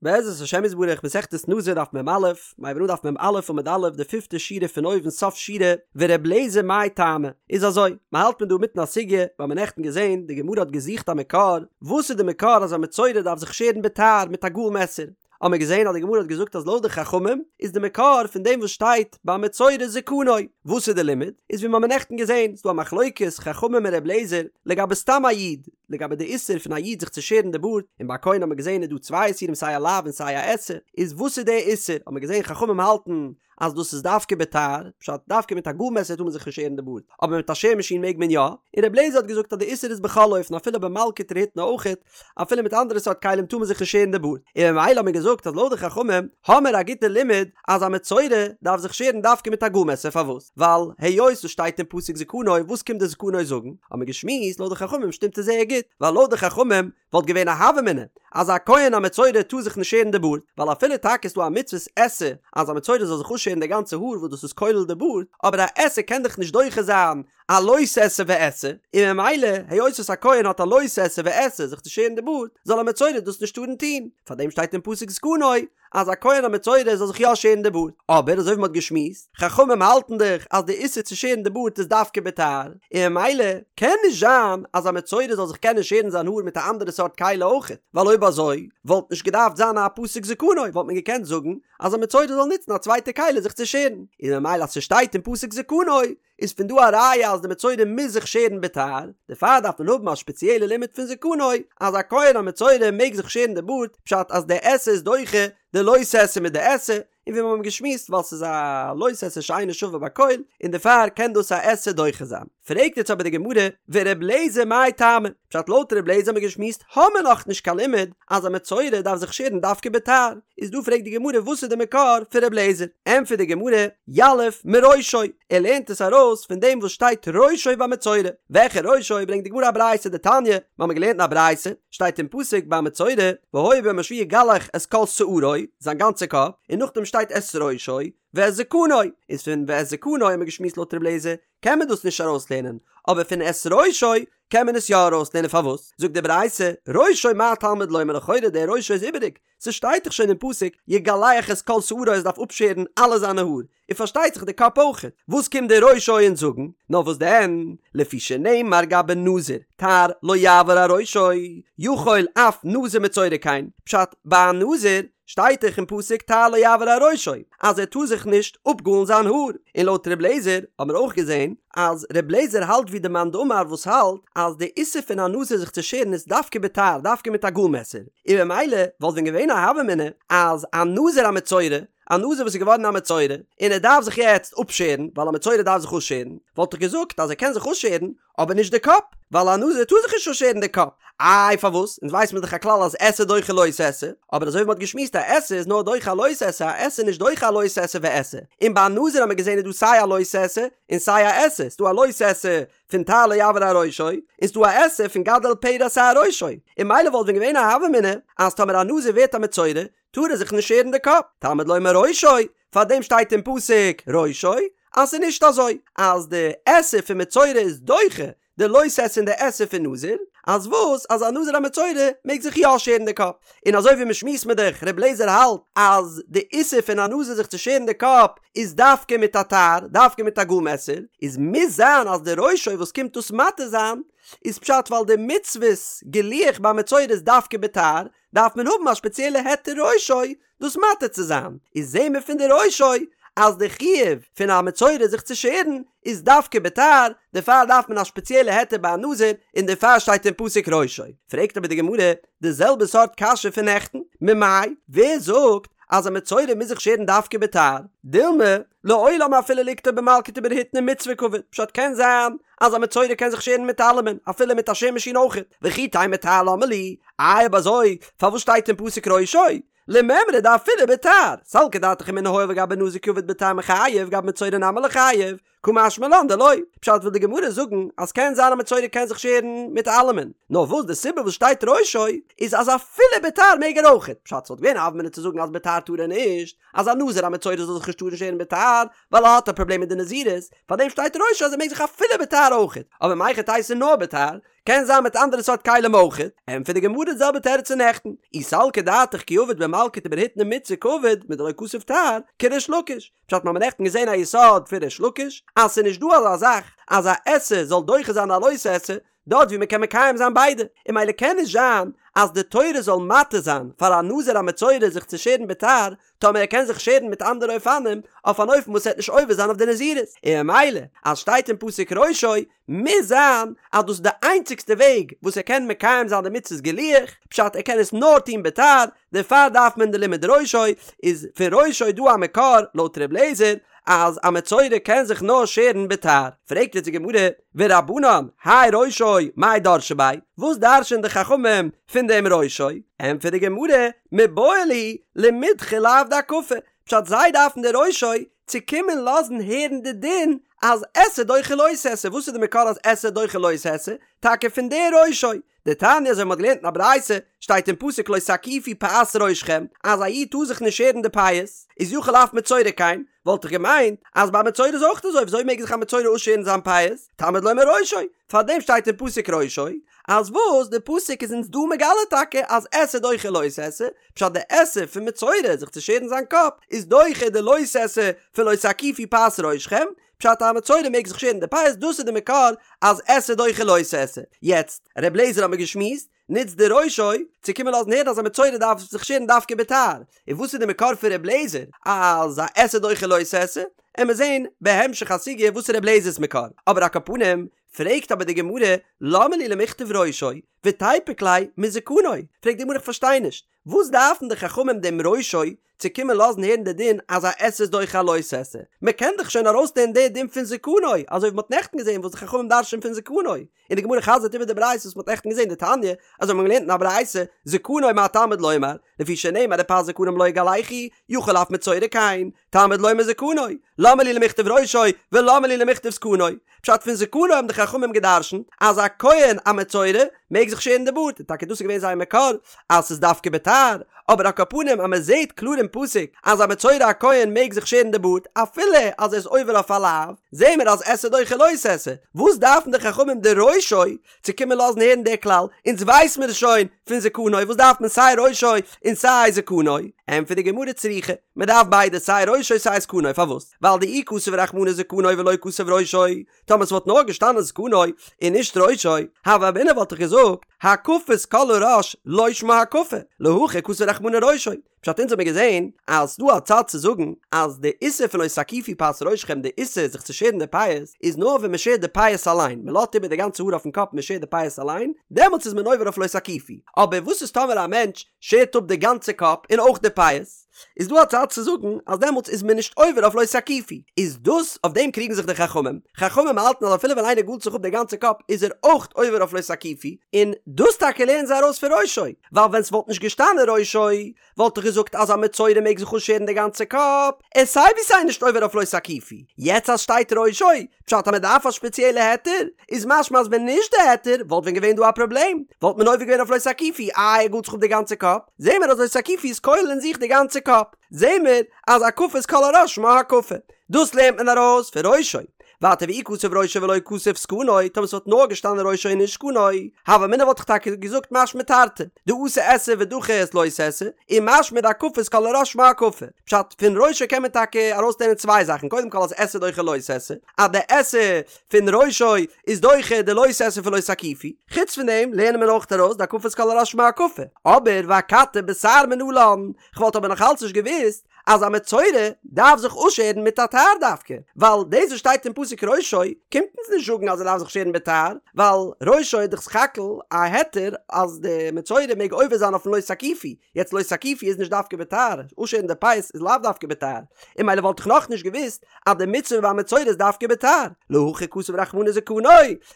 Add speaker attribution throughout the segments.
Speaker 1: בעזרת השם יתברך מסכת נזיר דף מ"א, מ'הייבט אן דף מ"א עמוד א', די פיפטע שורה פון אויבן סוף שורה, ור' לעזער מאי טעמא, איז אזוי, מ'האלט מען דא מיטן א סוגיא, מיר האבן נעכטן געזען, די גמרא האט געזוכט א מקור, וואס איז די מקור אז א מצורע דארף זיך שערן בתער מיט א גאל מעסער, האבן מיר געזען אז די גמרא האט געזאגט אז לויט די חכמים איז די מקור פון דעם וואס שטייט ביי מצורע זקנו, וואס איז די לימוד? איז ווי מיר האבן נעכטן געזען, ס'דא א מחלוקת חכמים און ר' לעזער לגבי סתם א איד, לגבי די איסור פון א איד זיך צו שערן די בארד, און ביי א כהן האט מען געזען איז דא צוויי איסורים סיי א לאו און סיי א עשה, איז וואס איז די איסור? האט מען געזען חכמים האלטן אז דאס איז דווקא בתער, פשט דווקא מיט א גאל מעסער טאר מען זיך נישט שערן די בארד, אבער מיט א שער מאשין מעג מען יא, און ר' לעזער האט געזאגט אז די איסור איז בכל אופן אפילו במלקט ורהיטני אויכעט, אפילו מיט אנדערע סארט כלים טאר מען זיך נישט שערן די בארד, און ממילא האט מען געזאגט אז לויט די חכמים האמער א גוטע לימוד אז א מצורע דארף זיך שערן דווקא מיט א גאל מעסער פארוואס? ווייל היות עס שטייט אין פסוק זקנו וואס קומט די זקנו זאגן? האט מען געשמועסט לויט די חכמים שטימט עס זייער גוט ווייל לויט די חכמים וואלט געווען א הוה אמינא אז א כהן א מצורע טאר זיך נישט שערן די בארד ווייל אפילו טאקע איז דא א מצוות עשה אז א מצורע זאל זיך אפשערן די גאנצע האר וואס דאס איז כולל די בארד אבער א עשה קען דאך נישט דוחה זיין א לא תעשה ועשה, און ממילא היות וואס א כהן האט א לא תעשה ועשה זיך צו שערן די בארד, זאל א מצורע דאס נישט טארן טון, פארדעם שטייט אין פסוק זקנו אז א כהן א מצורע זאל זיך יא שערן די בארד, אבער אזוי ווי מ'האט געשמועסט, חכמים האלטן דאך אז די איסור צו שערן די בארד איז דווקא בתער, און ממילא קען נישט זיין אז א מצורע זאל זיך קענען שערן זיין האר מיט א אנדערע סארט כלי אויכעט, ווייל אויב אזוי וואלט נישט געדארפט זיין א פסוק זקנו, וואלט מען געקענט זאגן אז א מצורע זאל נוצן א צווייטע כלי זיך צו שערן, און ממילא אז ס'שטייט אין פסוק זקנו איז פון דא א ראיה אז די מצורע מוז זיך שערן בתער, דערפאר דארף מען האבן א שפעציעלע לימוד פון זקנו אז א כהן א מצורע מעג זיך שערן די בארד, פשט אז די עשה איז דוחה די לא תעשה מיט די עשה, און ווי מיר האבן געשמועסט ווייל ס'איז א לא תעשה שאינה שווה בכל, און דערפאר קען דאס א עשה דוחה זיין. פרעגט יעצט אבער די גמרא, ור' לעזער מאי טעמא? פשט לויט ר' לעזער האבן מיר געשמועסט האמער נאכנישט קיין לימוד אז א מצורע דארף זיך שערן דווקא בתער, איז דא פרעגט די גמרא וואס איז די מקור פון ר' לעזער? ענטפערט די גמרא, יליף מראשו, ער לערנט עס ארויס פון דעם וואס שטייט ראשו ביי מצורע, וועלכע ראשו ברענגט די גמרא א ברייתא דתניא, מיר האבן געלערנט אין א ברייתא, שטייט אין פסוק ביי מצורע, והיה ביום השביעי יגלח את כל שערו, זיין גאנצע קאפ, און נאכדעם שטייט את ראשו, ואת זקנו, איז פון ואת זקנו האבן מיר געשמועסט לויט ר' לעזער, קען מען דאס נישט ארויסלערנען, אבער פון את ראשו קען מען עס יא ארויסלערנען פארוואס? זאגט די ברייתא, ראשו מה תלמוד לומר לכאורה דער ראשו איז איבעריג, ס'שטייט דאך שוין אין פסוק יגלח את כל שערו ער דארף אפשערן אלע זיינע האר, און פארשטייט זיך די קאפ אויכעט, וואס קומט דער ראשו אונז זאגן? נאר וואס דען, לפי שנאמר גבי נזיר, תער לא יעבור על ראשו, יכול אף נזיר מצורע כן, פשט, ביי א נזיר שטייט דאך אין פסוק תער לא יעבור על ראשו אז ער טאר זיך נישט אפגאלן זיין האר, און לויט ר' לעזער האבן מיר אויך געזען אז ר' לעזער האלט ווי די מאן דאמר וואס האלט אז די איסור פון א נזיר זיך צו שערן איז דווקא בתער דווקא מיט א גאל מעסער, און ממילא וואלט ווען געווען א הוה אמינא אז א נזיר א מצורע, א נזיר וואס איז געווארן א מצורע און ער דארף זיך יעצט אפשערן ווייל א מצורע דארף זיך אפשערן, וואלט איך געזאגט אז ער קען זיך אפשערן אבער נישט די קאפ, ווייל א נזיר טאר זיך נישט אפשערן די קאפ. איי פארוואס? אונז ווייסט מען דאך א כלל אז עשה דוחה לא תעשה, אבער אזוי ווי מ'האט געשמועסט א עשה איז נאר דוחה א לא תעשה, א עשה איז נישט דוחה א לא תעשה ועשה. און ביי א נזיר האט מען געזען איז דא סיי א לא תעשה און סיי א עשה, ס'דא א לא תעשה פון תער לא יעבור על ראשו, און ס'דא א עשה פון גדל פרע שער ראשו. און ממילא וואלט ווען געווען א הוה אמינא אז טאמער א נזיר ווערט א מצורע טאר ער זיך נישט שערן די קאפ, תלמוד לומר ראשו, פארדעם שטייט אין פסוק ראשו, אז ס'איז נישט אזוי אז די עשה פון מצורע איז דוחה די לא תעשה און די עשה פון נזיר, אז וואס אז א נזיר א מצורע מעג זיך יא שערן די קאפ, און אזוי ווי מ'שמועסט מיט דאך ר' לעזער האלט אז די איסור פון א נזיר זיך צו שערן די קאפ איז דווקא מיט א תער, דווקא מיט א גאל מעסער, איז מוז זיין אז די ראשו וואס קומט דאס מתיר זיין איז פשט ווייל די מצוות גילוח ביי מצורע איז דווקא בתער, דארף מען האבן א שפעציעלע היתר ראשו דאס מתיר צו זיין, איז זעהן מיר פון די ראשו אז די חיוב פון א מצורע זיך צו שערן איז דווקא בתער, דערפאר דארף מען א שפעציעלע היתר ביי א נזיר, און דערפאר שטייט אין פסוק ראשו. פרעגט אבער די גמרא די זעלבע סארט קשיא פון נעכטן, ממאי, ווער זאגט אז א מצורע מוז זיך שערן דווקא בתער? דילמא, לעולם אפילו ליקטו במלקט וברהיטני מצוה קעביד, פשט קען זיין אז א מצורע קען זיך שערן מיט אלעמען, אפילו מיט א שער מאשין אויכעט, וכי תימא תער למה לי, איי אויב אזוי פארוואס שטייט אין פסוק ראשו? למימרא דאפילו בתער, סלקא דעתך אמינא הואיל וגבי נזיר קעביד בתער מיחייב גבי מצורע נמי ליחייב. קא משמע לן דלא, פשט וויל די גמרא זאגן אז קען זיין א מצורע קען זיך שערן מיט אלעמען, נאר וואס די סיבה וואס שטייט ראשו איז אז אפילו בתער מעג ער אויכעט, פשט ס'וואלט געווען א הוה אמינא צו זאגן אז בתער טאר ער נישט, אז א נזיר א מצורע זאל זיך נישט טארן שערן בתער, ווייל ער האט א פראבלעם מיט די נזירות, פארדעם שטייט ראשו אז ער מעג זיך אפילו בתער אויכעט, אבער מהיכי תיתי נאר בתער, קען זיין מיט אנדערע סארט כלים אויכעט, ענטפערט די גמרא די זעלבע תירוץ פון נעכטן, אי סלקא דעתך כי עביד במלקט וברהיטני מצוה קעביד מדלא כתב תער, כריש לקיש, פשט מ'האמיר נעכטן געזען א יסוד פון ריש לקיש, אז ס'איז נישט דא אזא זאך אז א עשה זאל דוחה זיין א לא תעשה, דארט ווי מ'קען מקיים זיין ביידע, און ממילא קען נישט זיין אז די תורה זאל מתיר זיין פאר א נזיר א מצורע זיך צו שערן בתער, טאמער ער קען זיך שערן מיט אנדערע אופנים, אויף אן אופן וואס ער וועט נישט עובר זיין אויף די נזירות, און ממילא אז שטייט אין פסוק ראשו, מוז זיין אז דאס איז די איינציגסטע וועג וואס ער קען מקיים זיין די מצות גילוח, פשט ער קען עס נאר טון בתער, דערפאר דארף מען די לימוד ראשו, איז פון ראשו דא א מקור לויט ר' לעזער אז א מצורע קען זיך נאר שערן בתער, פרעגט יעצט די גמרא, ורבנן, האי ראשו, מאי דרשי ביה, וואס דרש'ען די חכמים פון דעם ראשו? ענטפערט די גמרא, מיבעי להו למידחי לאו דהקפה, פשט זיי דארפן די ראשו צו קומען לאזן הערן די דין אז עשה דוחה לא תעשה, וואס איז די מקור אז עשה דוחה לא תעשה? טאקע פון די ראשו, דתניא אזוי ווי מ'האט געלערנט אין א ברייתא, שטייט אין פסוק לא תקיפו פאת ראשכם, אז א איד טאר זיך נישט שערן די פאות, איז יכול אף מצורע כן, וואלט איך געמיינט אז ביי מצורע איז אויך אזוי, וויאזוי מעג זיך א מצורע אפשערן זיין פאות? תלמוד לומר ראשו, פארדעם שטייט אין פסוק ראשו, אז וואס די פסוק איז אונז דא מגלה טאקע אז עשה דוחה לא תעשה, פשט די עשה פון מצורע זיך צו שערן זיין קאפ איז דוחה די לא תעשה פון לא תקיפו פאת ראשכם, פשט א מצורע מעג זיך שערן די פאות דאס איז די מקור אז עשה דוחה לא תעשה. יעצט, ר' לעזער האט מיר געשמועסט, נוצט די ראשו צו קומען לאזן הערן אז א מצורע דארף זיך שערן דווקא בתער, און וואס איז די מקור פון ר' לעזער אז א עשה דוחה לא תעשה? עמיר זעהן בהמשך הסוגיא וואס איז ר' לעזער'ס מקור, אבער על כל פנים פרעגט אבער די גמרא למה לי למכתב ראשו ותיפוק ליה מזקנו, פרעגט די גמרא איך פארשטיי נישט, וואס דארפן די חכמים דעם ראשו צו קומען לאזן הערן די דין אז א עשה איז דוחה א לא תעשה? מען קען דאך שוין ארויסלערנען די דין פון זקנו, אזוי ווי מען האט נעכטן געזען וואס די חכמים דרש'ען פון זקנו, און די גמרא חזר'ט איבער די ברייתא וואס מען האט נעכטן געזען דתניא, אזוי האט מען געלערנט אין א ברייתא, זקנו מה תלמוד לומר, לפי שנאמר ופאת זקנם לא יגלחו, יכול אף מצורע כן, תלמוד לומר זקנו, למה לי למכתב ראשו ולמה לי למכתב זקנו? פשט פון זקנו האבן די חכמים גע'דרש'נט אז א כהן א מצורע מעג זיך שערן די בארד, און טאקע דאס איז געווען זייער מקור אז ס'איז דווקא בתער, אבער על כל פנים אז מ'זעהט קלאר אין פסוק אז א מצורע א כהן מעג זיך שערן די בארד אפילו אז ער איז עובר אויף א לאו, זעהן מיר אז עשה דוחה לא תעשה, וואס דארפן די חכמים די ראשו צו קומען לאזן הערן די כלל, אונז ווייס מיר עס שוין פון זקנו, וואס דארף מען סיי ראשו און סיי זקנו? ענטפערט די גמרא צריכא, מען דארף ביידע סיי ראשו סיי זקנו, פארוואס? ווייל דאי כתב רחמנא זקנו ולא כתב ראשו, טאמער ס'וואלט נאר געשטאנען זקנו און נישט ראשו, הוה אמינא וואלט איך געזאגט, הקפת כל הראש לא שמה הקפה, להכי כתב רחמנא ראשו, פשט אונז האמיר געזען אז ס'דא א צד צו זאגן אז די איסור פון לא תקיפו פאת ראשכם די איסור זיך צו שערן די פאות איז נאר ווען מ'שערט די פאות אליין מ'לאזט איבער די גאנצע האר אויפן קאפ מ'שערט די פאות אליין דעמאלטס איז מען עובר אויף לא תקיפו אבער וואס איז טאמער א מענטש שערט אפ די גאנצע קאפ און אויך די פאות איז דא א צד צו זאגן אז דעמאלטס איז מען נישט עובר אויף לא תקיפו איז דאס אויף דעם קריגן זיך די חכמים חכמים האלטן אז אפילו ווען איינער גאלט זיך אפ די גאנצע קאפ איז ער אויך עובר אויף לא תקיפו און דאס טאקע לערנען זיי ארויס פון ראשו ווייל ווען ס'וואלט נישט געשטאנען ראשו וואלט איך געזאגט אז א מצורע מעג זיך אפשערן די גאנצע קאפ, ער איז סיי ווי סיי נישט עובר אויף לא תקיפו, יעצט אז שטייט ראשו, פשט אז מ'דארף א שפעציעלע היתר, איז משמע אז ווען נישט די היתר וואלט ווען געווען דא א פראבלעם, וואלט מען עובר געווען אויף לא תקיפו, איי ער גאלט זיך אפ די גאנצע קאפ, זעהן מיר אז לא תקיפו איז כולל אין זיך די גאנצע קאפ, זעהן מיר אז הקפת כל הראש שמה הקפה, דאס לערנט מען ארויס פון ראשו, ווייטער ואי כתב ראשו ולא כתב זקנו, טאמער ס'וואלט נאר געשטאנען ראשו און נישט זקנו, הוה אמינא וואלט איך טאקע געזאגט משמע תרתי, דאתי עשה ודחי את לא תעשה, און משמע דהקפת כל הראש שמה הקפה. פשט, פון ראשו קען מען טאקע ארויסלערנען צוויי זאכן, קודם כל אז עשה דוחה לא תעשה, אז די עשה פון ראשו איז דוחה די לא תעשה פון לא תקיפו, חוץ פון דעם לערנען מיר אויך ארויס דהקפת כל הראש שמה הקפה. אבער ואכתי בתער מנלן, כ'וואלט אבער נאכאלץ נישט געוואוסט אז א מצורע דארף זיך אפשערן מיט א תער דווקא, ווייל דאס וואס שטייט אין פסוק ראשו קומט אונז נישט זאגן אז ער דארף זיך שערן בתער, ווייל ראשו איז דאך סך הכל א היתר אז די מצורע מעג עובר זיין אויפן לא תקיפו, יעצט לא תקיפו איז נישט דווקא בתער, אפשערן די פאות איז לאו דווקא בתער, און ממילא וואלט איך נאכנישט געוואוסט אז די מצוה ביי מצורע איז דווקא בתער, להכי כתב רחמנא זקנו,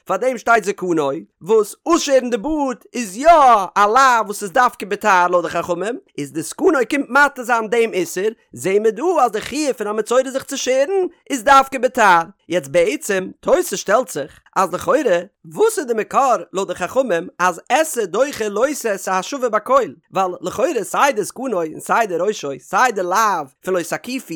Speaker 1: פאר דעם שטייט זקנו, וואס אויסשערן די בארד איז יא א לאו וואס איז דווקא בתער לויט די חכמים, איז די זקנו קומט מתיר זיין דעם איסור, זעהן מיר דא אז די חיוב פון א מצורע זיך צו שערן איז דווקא בתער. יעצט בעצם, תוס' שטעלט זיך, אז לכאורה, וואס איז די מקור לויט די חכמים אז עשה דוחה לא תעשה השווה בכל? ווייל לכאורה סיי די זקנו און סיי די ראשו, סיי די לאו פון לא תקיפו,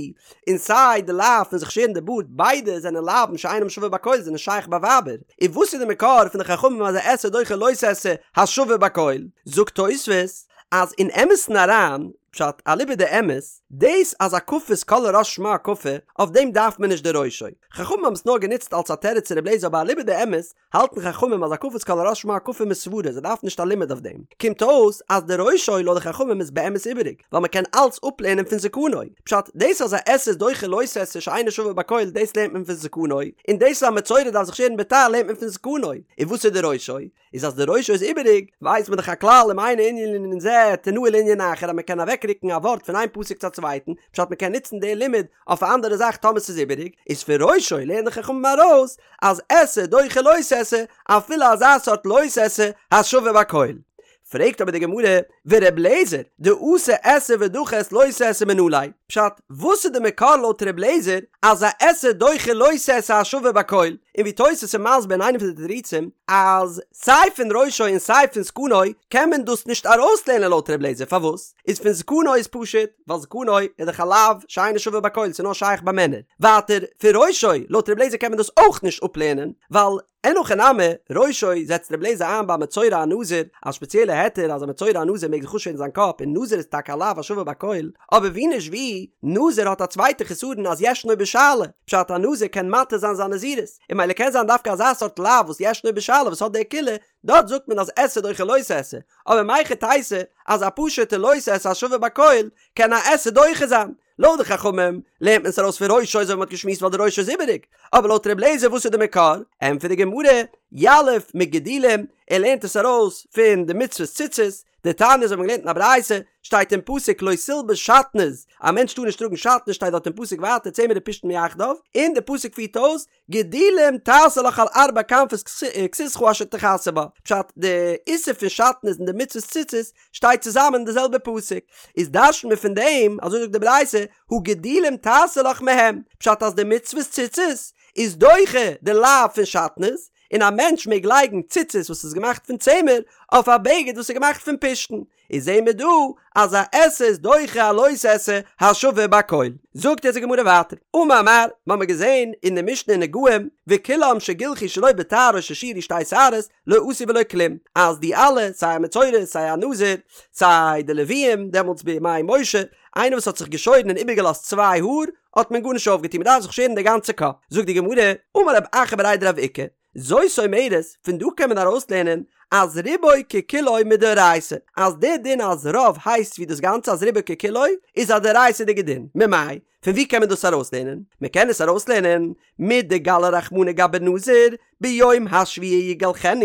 Speaker 1: און סיי די לאו פון זיך שערן די בארד, ביידע זענען לאווין שאינם שווה בכל זענען שייך ביי ווייבער. און וואס איז די מקור פון די חכמים אז א עשה דוחה לא תעשה השווה בכל? זאגט תוספות אז אין אמת'ן אריין, פשט אליבא דאמת, דאס אז הקפת כל הראש שמה הקפה, אויף דעם דארף מען נישט די ראשו. חכמים האבן עס נאר גענוצט אלס א תירוץ צו ר' אליעזר אבער אליבא דאמת האלטן חכמים אז הקפת כל הראש שמה הקפה מסברא זיי דארפן נישט א לימוד אויף דעם. קומט אויס אז די ראשו לויט די חכמים איז באמת איבעריג ווייל מען קען אלץ אפלערנען פון זקנו. פשט, דאס אז א עשה איז דוחה לא תעשה שאינו שווה בכל דאס לערנט מען פון זקנו, און דאס אז א מצורע דארף זיך שערן בתער לערנט מען פון זקנו. און וואס איז די ראשו? איז אז די ראשו איז איבעריג, ווייסט מען דאך א כלל אם אינו ענין לענין זה תנהו לענין אחר אז מען קען אוועקרוקן א ווארט פון איין פסוק צו א צווייטן, פשט מען קען נוצן די לימוד אויף א אנדערע זאך טאמער ס'איז איבעריג, איז פון ראשו לערנען די חכמים ארויס אז עשה דוחה לא תעשה אפילו אזא סארט לא תעשה השווה בכל. פרעגט אבער די גמרא, ור' אליעזר, דאתי עשה ודחי את לא תעשה מנא ליה, פשט, וואס איז די מקור לויט ר' אליעזר אז א עשה דוחה לא תעשה השווה בכל, און ווי תוס' איז מסביר אין איינע פון די תירוצים אז סיי פון ראשו און סיי פון זקנו קען מען דאס נישט ארויסלערנען לויט ר' אליעזר פארוואס איז פון זקנו איז פשוט ווייל זקנו איז דאך א לאו שאינו שווה בכל ס'איז נאר שייך ביי מענער ווייטער פון ראשו לויט ר' אליעזר קען מען דאס אויך נישט אפלערנען ווייל אין הכי נמי, ראשו זעצט רבי אליעזר איין ביי מצורע א נזיר, א שפעציעלע היתר אז א מצורע א נזיר מעג זיך אפשערן זיין קאפ און נזיר איז טאקע א לאו השווה בכל, אבער ווי נישט ווי, נזיר האט א צווייטע חסרון אז ישנו בשאלה, פשט א נזיר קען מתיר זיין זיין נזירות, און ממילא קען זיין דווקא אזא סארט לאו וואס ישנו בשאלה וואס האט די קולא, דארט זאגט מען אז עשה דוחה לא תעשה, אבער מהיכי תיתי אז א פשוטע לא תעשה השווה בכל קען א עשה דוחה זיין, לויט די חכמים לערנט מען עס ארויס פון ראשו אזוי ווי מ'האט געשמועסט ווייל די ראשו איז איבעריג, אבער לויט ר' אליעזר וואס איז די מקור? ענטפערט די גמרא, יליף מגדילים, ער לערנט עס ארויס פון די מצוות ציצית, דתניא אזוי האט מען געלערנט אין א ברייתא, שטייט אין פסוק לא תלבש שעטנז, א מענטש טאר נישט טראגן שעטנז שטייט דארט אין פסוק ווייטער צמר ופשתן יחדיו, און די פסוק פירט אויס, גדילים תעשה לך על ארבע כנפות כסותך אשר תכסה בה, פשט, די איסור פון שעטנז און די מצוות ציצית שטייט צוזאמען אין די זעלבע פסוק, איז דרש'נט מען פון דעם, אזוי זאגט די ברייתא, הא גדילים תעשה לך מהם, פשט אז די מצוות ציצית איז דוחה די לאו פון שעטנז, און א מענטש מעג לייגן ציצית וואס איז געמאכט פון צמר אויף א בגד וואס איז געמאכט פון פשתן, איז זעהן מיר דא אז א עשה איז דוחה א לא תעשה השווה בכל. זאגט אונז די גמרא ווייטער, אמר מר, מ'האמיר געזעהן אין די משנה אין נגעים, וכולם שגילחו שלא בתער או ששיירו שתי שערות, לא עשו ולא כלום, אז די אלע, סיי א מצורע, סיי א נזיר, סיי די לוויים, דעמאלטס בימי משה, איינער וואס האט זיך געשוירן און איבערגעלאזט צוויי האר, האט מען גארנישט אויפגעטון, מ'דארף זיך שערן די גאנצע קאפ. זאגט די גמרא, אמר רב אחא בריה דרב איקא, זאת אומרת, פון דא קען מען ארויסלערנען אז רובו ככולו מדאורייתא, אז דער דין אז רוב הייסט ווי דאס גאנצע אז רובו ככולו איז א דאורייתא'דיגע דין, ממאי? פון וואו קען מען דאס ארויסלערנען? מען קען עס ארויסלערנען מדגלי רחמנא גבי נזיר ביום השביעי יגלחנו,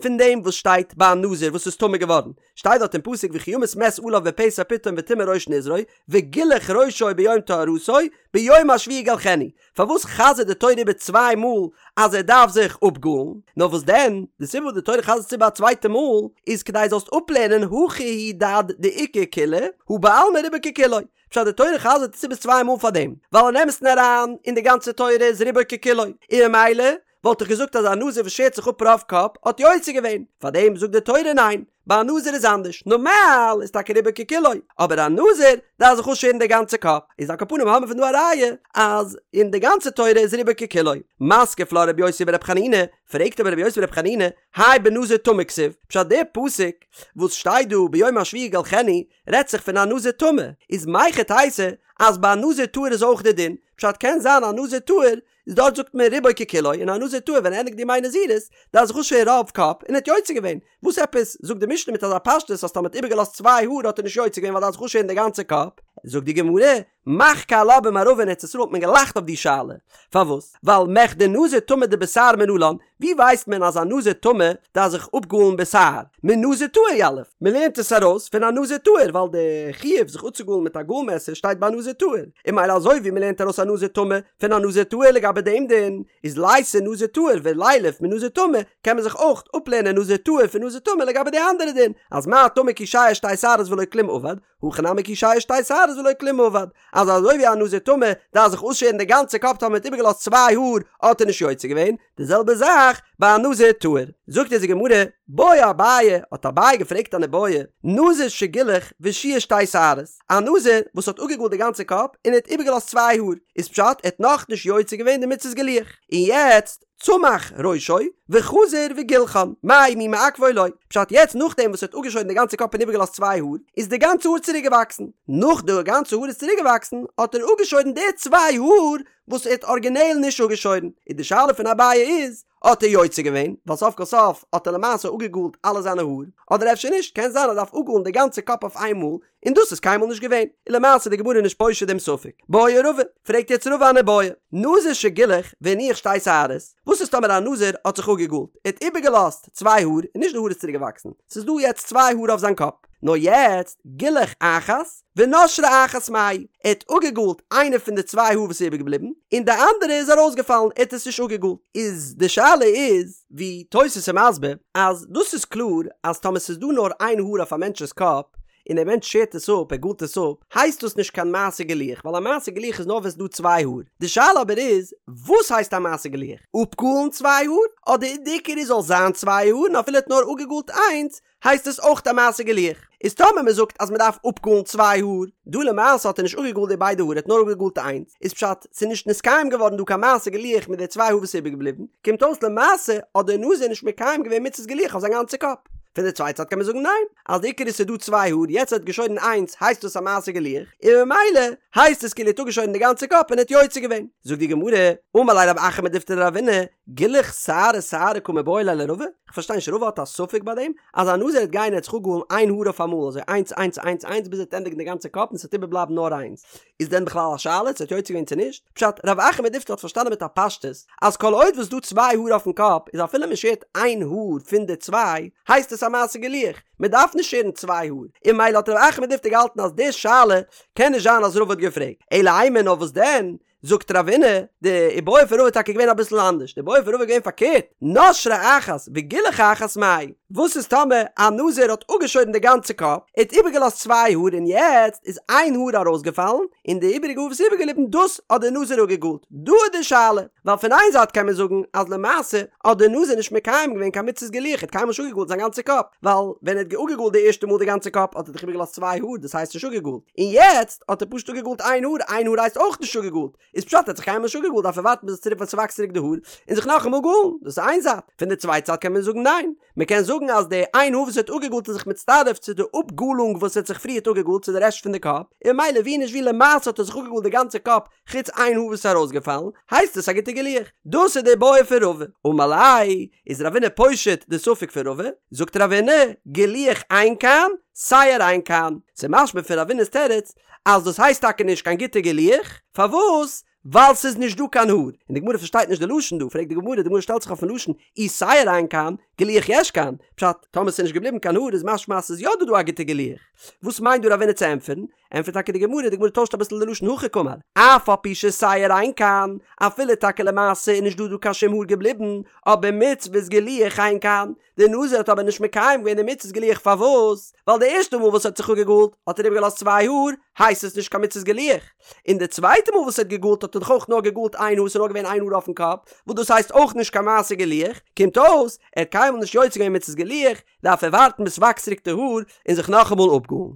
Speaker 1: פון דעם וואס שטייט ביי א נזיר וואס איז טמא געווארן, שטייט דארט אין פסוק וכי ימות מת עליו בפתע פתאום וטמא ראש נזרו וגילח ראשו ביום טהרתו ביום השביעי יגלחנו, פארוואס חזר'ט די תורה איבער צוויי מאל אז ער דארף זיך אפגאלן? נאר וואס דען, די סיבה וואס די תורה חזר'ט עס איבער א צווייטע מאל, איז כדי זאלסט אפלערנען הכא הוא דעד דאיכא קולא, הא בעלמא רובו ככולו. פשט די תורה חזר'ט עס איבער צוויי מאל פארדעם, ווייל אין אמת'ן אריין, אין די גאנצע תורה איז רובו ככולו, און ממילא וואלט איך געזאגט אז א נזיר וואס שערט זיך אפ רוב קאפ האט יוצא געווען, פארדעם זאגט די תורה ניין, ביי א נזיר איז אנדערש, נארמאל איז טאקע רובו ככולו, אבער א נזיר דארף זיך אפשערן די גאנצע קאפ, איז על כל פנים האבן מיר פון דא א ראיה אז אין די גאנצע תורה איז רובו ככולו. מתקיף לה רבי יוסי ברבי חנינא, פרעגט אבער רבי יוסי ברבי חנינא, האי בנזיר טמא כתיב, פשט דער פסוק וואס שטייט דא ביום השביעי יגלחנו רעדט זיך פון א נזיר טמא, איז מהיכי תיתי אז ביי א נזיר טהור איז אויך די דין, פשט קען זיין א נזיר טהור איז דארט זאגט מען רובו ככולו און א נזיר טהור ווען ער ענדיגט די ימי נזירות דארף זיך אפשערן רוב קאפ און ער האט יוצא געווען, וואס עפעס זאגט די משנה מיט אזא פשטות אז טאמער האט איבערגעלאזט צוויי האר האט ער נישט יוצא געווען ווייל דארף זיך אפשערן די גאנצע קאפ? זאגט די גמרא, מחכו עלה במערבא אין ארץ ישראל האט מען געלאכט אויף די שאלה, פארוואס? ווייל מכדי נזיר טמא דבתער מנלן, ווי ווייסט מען אז א נזיר טמא דארף זיך אפגאלן בתער? מנזיר טהור יליף, מען לערנט עס ארויס פון א נזיר טהור ווייל די חיוב זיך אפצוגאלן מיט א גאל מעסער שטייט ביי א נזיר טהור, און ממילא אזוי ווי מען לערנט ארויס א נזיר טמא פון א נזיר טהור לגבי דעם דין, איז לייתי נזיר טהור ולילף מנזיר טמא, קען מען זיך אויך אפלערנען נזיר טהור פון נזיר טמא לגבי די אנדערע דין, אז מה טמא כי שייר שתי שערות ולא כלום עבד, הכא נמי כי שייר שתי שערות ולא כלום עבד. אז אזוי ווי א נזיר טמא דארף זיך אויסשערן די גאנצע קאפ טאמער מ'האט איבערגעלאזט צוויי האר האט ער נישט יוצא געווען, די זעלבע זאך ביי א נזיר טהור. זאגט אונז די גמרא, בעי אביי, האט אביי געפרעגט אן איבעיא, נזיר שגילח ושייר שתי שערות, א נזיר וואס האט אפגעגאלט די גאנצע קאפ און ער האט איבערגעלאזט צוויי האר, איז פשט ער האט נאכנישט יוצא געווען די מצות גילוח, און יעצט צמח ראשו וחזר וגילחן, מהו מי מעכבו או לא, פשט יעצט נאכדעם וואס ער האט אפגעשוירן די גאנצע קאפ און איבערגעלאזט צוויי האר, איז די גאנצע האר צוריק געוואקסן, נאך די גאנצע האר איז צוריק געוואקסן האט ער אפגעשוירן די צוויי האר וואס ער האט ארגינעל נישט אפגעשוירן, און די שאלה פון אביי איז, האט ער יוצא געווען, ווייל סוף כל סוף האט ער למעשה אפגעגאלט אלע זיינע האר, אדער אפשר נישט, קען זיין ער דארף אפגאלן די גאנצע קאפ אויף איינמאל, און דאס איז קיינמאל נישט געווען, און למעשה איז די גמרא נישט פושט דעם ספק. בעי רבא, פרעגט יעצט רבא אן איבעיא, נזיר שגילח והניח שתי שערות, וואס איז טאמער א נזיר האט זיך אפגעגאלט, ער האט איבערגעלאזט צוויי האר, און נישט די האר איז צוריק געוואקסן, ס'איז דא יעצט צוויי האר אויף זיין קאפ, נאר יעצט גילח אחת ונשרה אחת מהו, ער האט אפגעגאלט איינע פון די צוויי האר וואס איז איבערגעבליבן, און די אנדערע איז ארויסגעפאלן, ער האט עס נישט אפגעגאלט. איז די שאלה איז, ווי תוס' איז מסביר, אז דאס איז קלאר אז טאמער ס'איז דא נאר איין האר אויף א מענטש'ס קאפ, און דער מענטש שערט עס אפ, ער גאלט עס אפ, הייסט דאס נישט קיין מעשה גילוח, ווייל א מעשה גילוח איז נאר ווען ס'איז דא צוויי האר. די שאלה אבער איז, וואס הייסט א מעשה גילוח? אפגאלן צוויי האר? אדער די עיקר איז זאל זיין צוויי האר און אפילו ער האט נאר אפגעגאלט איינס, הייסט עס אויך א מעשה גילוח? איז טאמער מען זאגט אז מען דארף אפגאלן צוויי האר, דא למעשה האט ער נישט אפגעגאלט די ביידע האר ער האט נאר אפגעגאלט איינס, איז פשט ס'איז נישט נתקיים געווארן דא קיין מעשה גילוח מיט די צוויי האר וואס איז איבערגעבליבן, קומט אויס למעשה האט דער נזיר נישט מקיים געווען מצות גילוח אויף זיין גאנצע קאפ. פון די צווייטע צד קען מען זאגן ניין, אז די עיקר איז ס'איז דא צוויי האר, יעצט ער האט געשוירן איינס הייסט דאס א מעשה גילוח, און ממילא הייסט עס כאילו ער האט אפגעשוירן די גאנצע קאפ און ער האט יוצא געווען. זאגט די גמרא, אמר ליה רב אחא מדיפתי לרבינא, גילוח שערה שערה קא מיבעיא ליה לרבא? כ'פארשטיי נישט, רבא האט א ספק ביי דעם? אז א נזיר וועט גיין און ער וועט זיך אפגאלן איין האר אויף אמאל, אזוי איינס איינס איינס איינס ביז ער וועט ענדיגן די גאנצע קאפ און ס'וועט איבערבלייבן נאר איינס, איז דען בכלל א שאלה צו ער האט יוצא געווען צו נישט? פשט, רב אחא מדיפתי האט פארשטאנען מיט א פשטות אז כל עוד וואס דא צוויי האר אויפן קאפ איז אפילו מען שערט איין האר פון די צוויי הייסט עס א מעשה גילוח, מען דארף נישט שערן צוויי האר, און ממילא האט רב אחא מדיפתי געהאלטן אז די שאלה קען נישט זיין אז רבא האט געפרעגט, אלא אימא נאר וואס דען זאגט רבינא, די איבעיא פון רבא איז טאקע געווען אביסל אנדערש, די איבעיא פון רבא איז געווען פארקערט, נשרה אחת וגילח אחת מאי, וואס איז טאמער א נזיר האט אפגעשוירן די גאנצע קאפ, ער האט איבערגעלאזט צוויי האר און יעצט איז איין האר ארויסגעפאלן, און די איבעריגע האר וואס איז איבערגעבליבן דאס האט דער נזיר אפגעגאלט, דא איז די שאלה, ווייל פון איין זייט קען מען זאגן אז למעשה האט דער נזיר נישט מקיים געווען קיין מצות גילוח, ער האט קיינמאל נישט אפגעגאלט זיין גאנצע קאפ, ווייל ווען ער האט אפגעגאלט די ערשטע מאל די גאנצע קאפ האט ער דאך איבערגעלאזט צוויי האר דאס הייסט נישט אפגעגאלט, און יעצט האט ער פשוט אפגעגאלט איין האר, איין האר הייסט אויך נישט אפגעגאלט, איז פשט ער האט זיך קיינמאל נישט אפגעגאלט דארף ער ווארטן ביז עס צוריק ווען ס'וואקסט צוריק די האר און זיך נאכאמאל גאלן, דאס איז איין זייט, פון די צווייטע זייט קען מען זאגן ניין, מען קען זאגן אז די איין האר וואס ער האט אפגעגאלט איז זיך מצטרף צו די אפגאלונג וואס ער האט זיך פריערט אפגעגאלט צו די רעשט פון די קאפ, און ממילא ווי נישט ווי למעשה האט ער זיך אפגעגאלט די גאנצע קאפ חוץ איין האר וואס איז ארויסגעפאלן, הייסט עס א גוטע גילוח. דאס איז די איבעיא פון רבא. אמר ליה, איז רבינא פושט די ספק פון רבא, זאגט רבינא, גילוח אין כאן, שער אין כאן. ס'איז משמע פון רבינא'ס תירוץ אז דאס הייסט טאקע נישט קיין גוטע גילוח, פארוואס? ווייל ס'איז נישט דא קיין האר. און די גמרא פארשטייט נישט די לשון דא, פרעגט די גמרא, די גמרא שטעלט זיך אויפן לשון, אי שער אין כאן, גילוח יש כאן, פשט, טאמער ס'איז נישט געבליבן קיין האר איז משמע אז ס'איז יא דא דא א גוטע גילוח. וואס מיינט דא רבינא צו ענטפערן? ענטפערט טאקע די גמרא, די גמרא טוישט אביסל די לשון הכי קאמר, אף על פי ששער אין כאן, אפילו טאקע למעשה איז נישט דא דא קיין שום האר געבליבן, אבער מצות גילוח אין כאן, די נזיר האט אבער נישט מקיים געווען די מצות גילוח פארוואס? ווייל די ערשטע מאל וואס ער האט זיך אפגעגאלט האט ער איבערגעלאזט צוויי האר, הייסט עס נישט קיין מצות גילוח, און די צווייטע מאל וואס ער האט געגאלט האט ער דאך אויך נאר געגאלט איין האר, ס'איז נאר געווען איין האר אויפן קאפ, וואס דאס הייסט אויך נישט קיין מעשה גילוח, קומט אויס ער האט קיינמאל נישט יוצא געווען מצות גילוח, דארף ער ווארטן ביז ס'וואקסט צוריק די האר און זיך נאכאמאל אפגאלן.